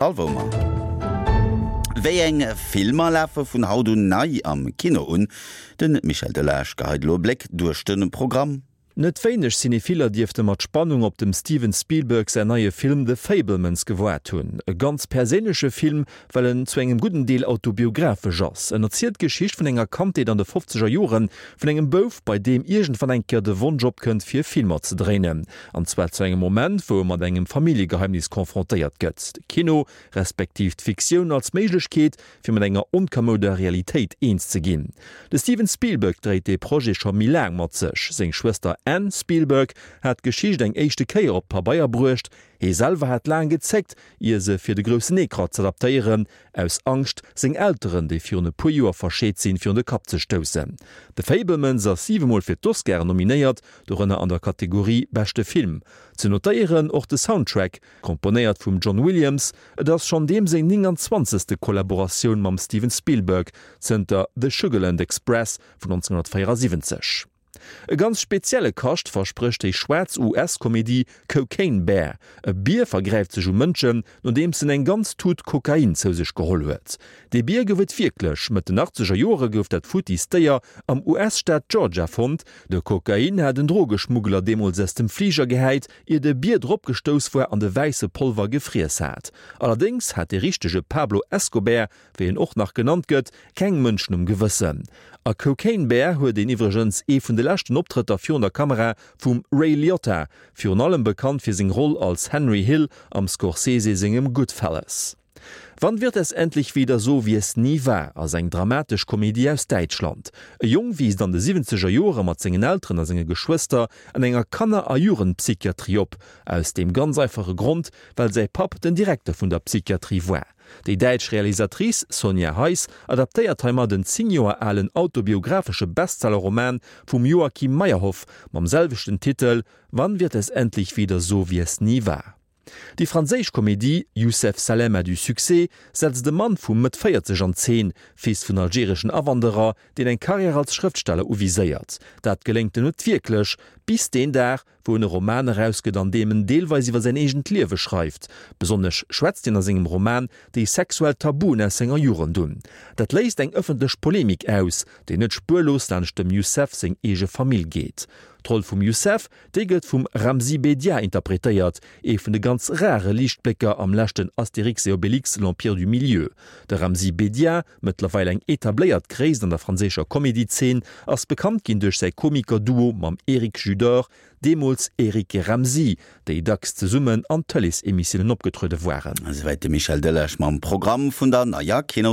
Alwoumer. Wéi eng Filmer lafe vun haut un nei am Kino un? De Michel Delage geheit elo e Bléck duerch de Programm. Net wéineg Cinephiller dierfte mat Spannung op dem Steven Spielberg säin neie Film The Fabelmans gewaart hunn. E ganz perséinleche Film, well en zu engem gudden Deel autobiographesch ass. En erzielt d'Geschicht vun enger Kandheet an de fofzeger Jore vun engem Bouf, bei deem iergendwann eng Kéier de Wonsch opkënnt fir Filmer ze dréinen. An zwar zu engem Moment, wou e mat engem Familljegeheimnis confrontéiert gëtt. De Kino, respektiv d'Fiktioun als Méiglechkeet, fir mat enger onkamouder Realitéit eens ze ginn. De Steven Spielberg dréit dee Projet scho méi laang mat sech. Seng Schwëster Anne Spielberg hat d'Geschicht eng éischte Kéier op d'Pabeier bruecht. Hee selwer hat laang gezéckt, ier se fir de groussen Ecran z'adaptéieren, aus Angscht, seng Elteren, déi virun e puer Joer verscheet sinn, virun de Kapp ze stoussen. The Fabelmans ass siwemol fir d'Oscaren nominéiert, dorënner an der Kategorie Beschte Film. Ze notéieren och de Soundtrack, komponéiert vum John Williams. Et ass schonn deem seng 29. Kollaboratioun mam Steven Spielberg zënter The Sugarland Express vun 1974. E ganz spezielle Kascht versprécht déi schwaarz US-Komedie Cocaine Bear. E Bier vergräift sech u Mënschen, nodeems en eng ganz Tut Kokain zou sech geholl huet. Dee Bier gouf et wierklech. Mëtt den achtzeger Joere gouf dat futtiist Déier am US-Staat Georgia fonnt. De Kokain hat en Drogeschmuggler deemools aus dem Fliger gehäit, ier de Bier drop gestouss war an de wäisse Polver gefriess hat. Allerdéngs hat de richtege Pablo Escobär, wéi en och nach genannt gëtt, keng Mënschen um Gewëssen. A Cocaine Bear huet een iwwregens ee vun de leschten Optrëtter virun der Kamera vum Ray Liotta, virun allem bekannt fir seng Roll als Henry Hill am Scorsese sengem Goodfellas. Wann wird es endlich wieder so, wie es nie war ass eng dramatesch Komedie aus Däitschland. E Jong wiisst an de siwwenzeger Joere mat sengen Elteren a senge Geschwëster an enger Kanner a Jugendpsychiatrie op, aus deem ganz einfache Grond, well säi Papp den Direkter vun der Psychiatrie war. Déi däitsch Realisatrice Sonja Heiss adaptéiert heimat en 10 Joer alen autobiographesche Bestseller-Roman vum Joachim Meyerhoff mam selwechten Titel Wann wird es endlich wieder so, wie es nie war? Déi franséisch Komedie Youssef Salem a du succès setzt e Mann vu Mëtt 40 an Zeen, Fils vun algereschen Awanderer, deen eng Karriär als Schrëftsteller uviséiert. Dat geléngt em net wierklech, bis deen Dag, wou en e Roman erausgëtt, an deem en deelweis iwwer säin eegent Liewe schreift. Besonnesch schwätzt hien a sengem Roman déi sexuell Tabuen aus senger Jugend un. Dat léist eng ëffentlech Polemik aus, déi net spuerlos laanscht dem Youssef seng eege Famill geet. D'Roll vum Youssef Déi gëtt vum Ramzy Bedia interpretéiert, ee vun de ganz rare Liichtblécker am leschten Astérix et Obélix, L'Empire du Milieu. De Ramzy Bedia, mëttlerweil eng etabléiert Gréisst an der franséischer Comedy-Zeen, ass bekannt ginn duerch säi Komiker-Duo mam Eric Judor, deemools Eric et Ramzy, déi dacks zesummen an Tëleesemissiounen opgetruede waren. Esouwäit de Michel Delage mam Programm vun der neier Kinos.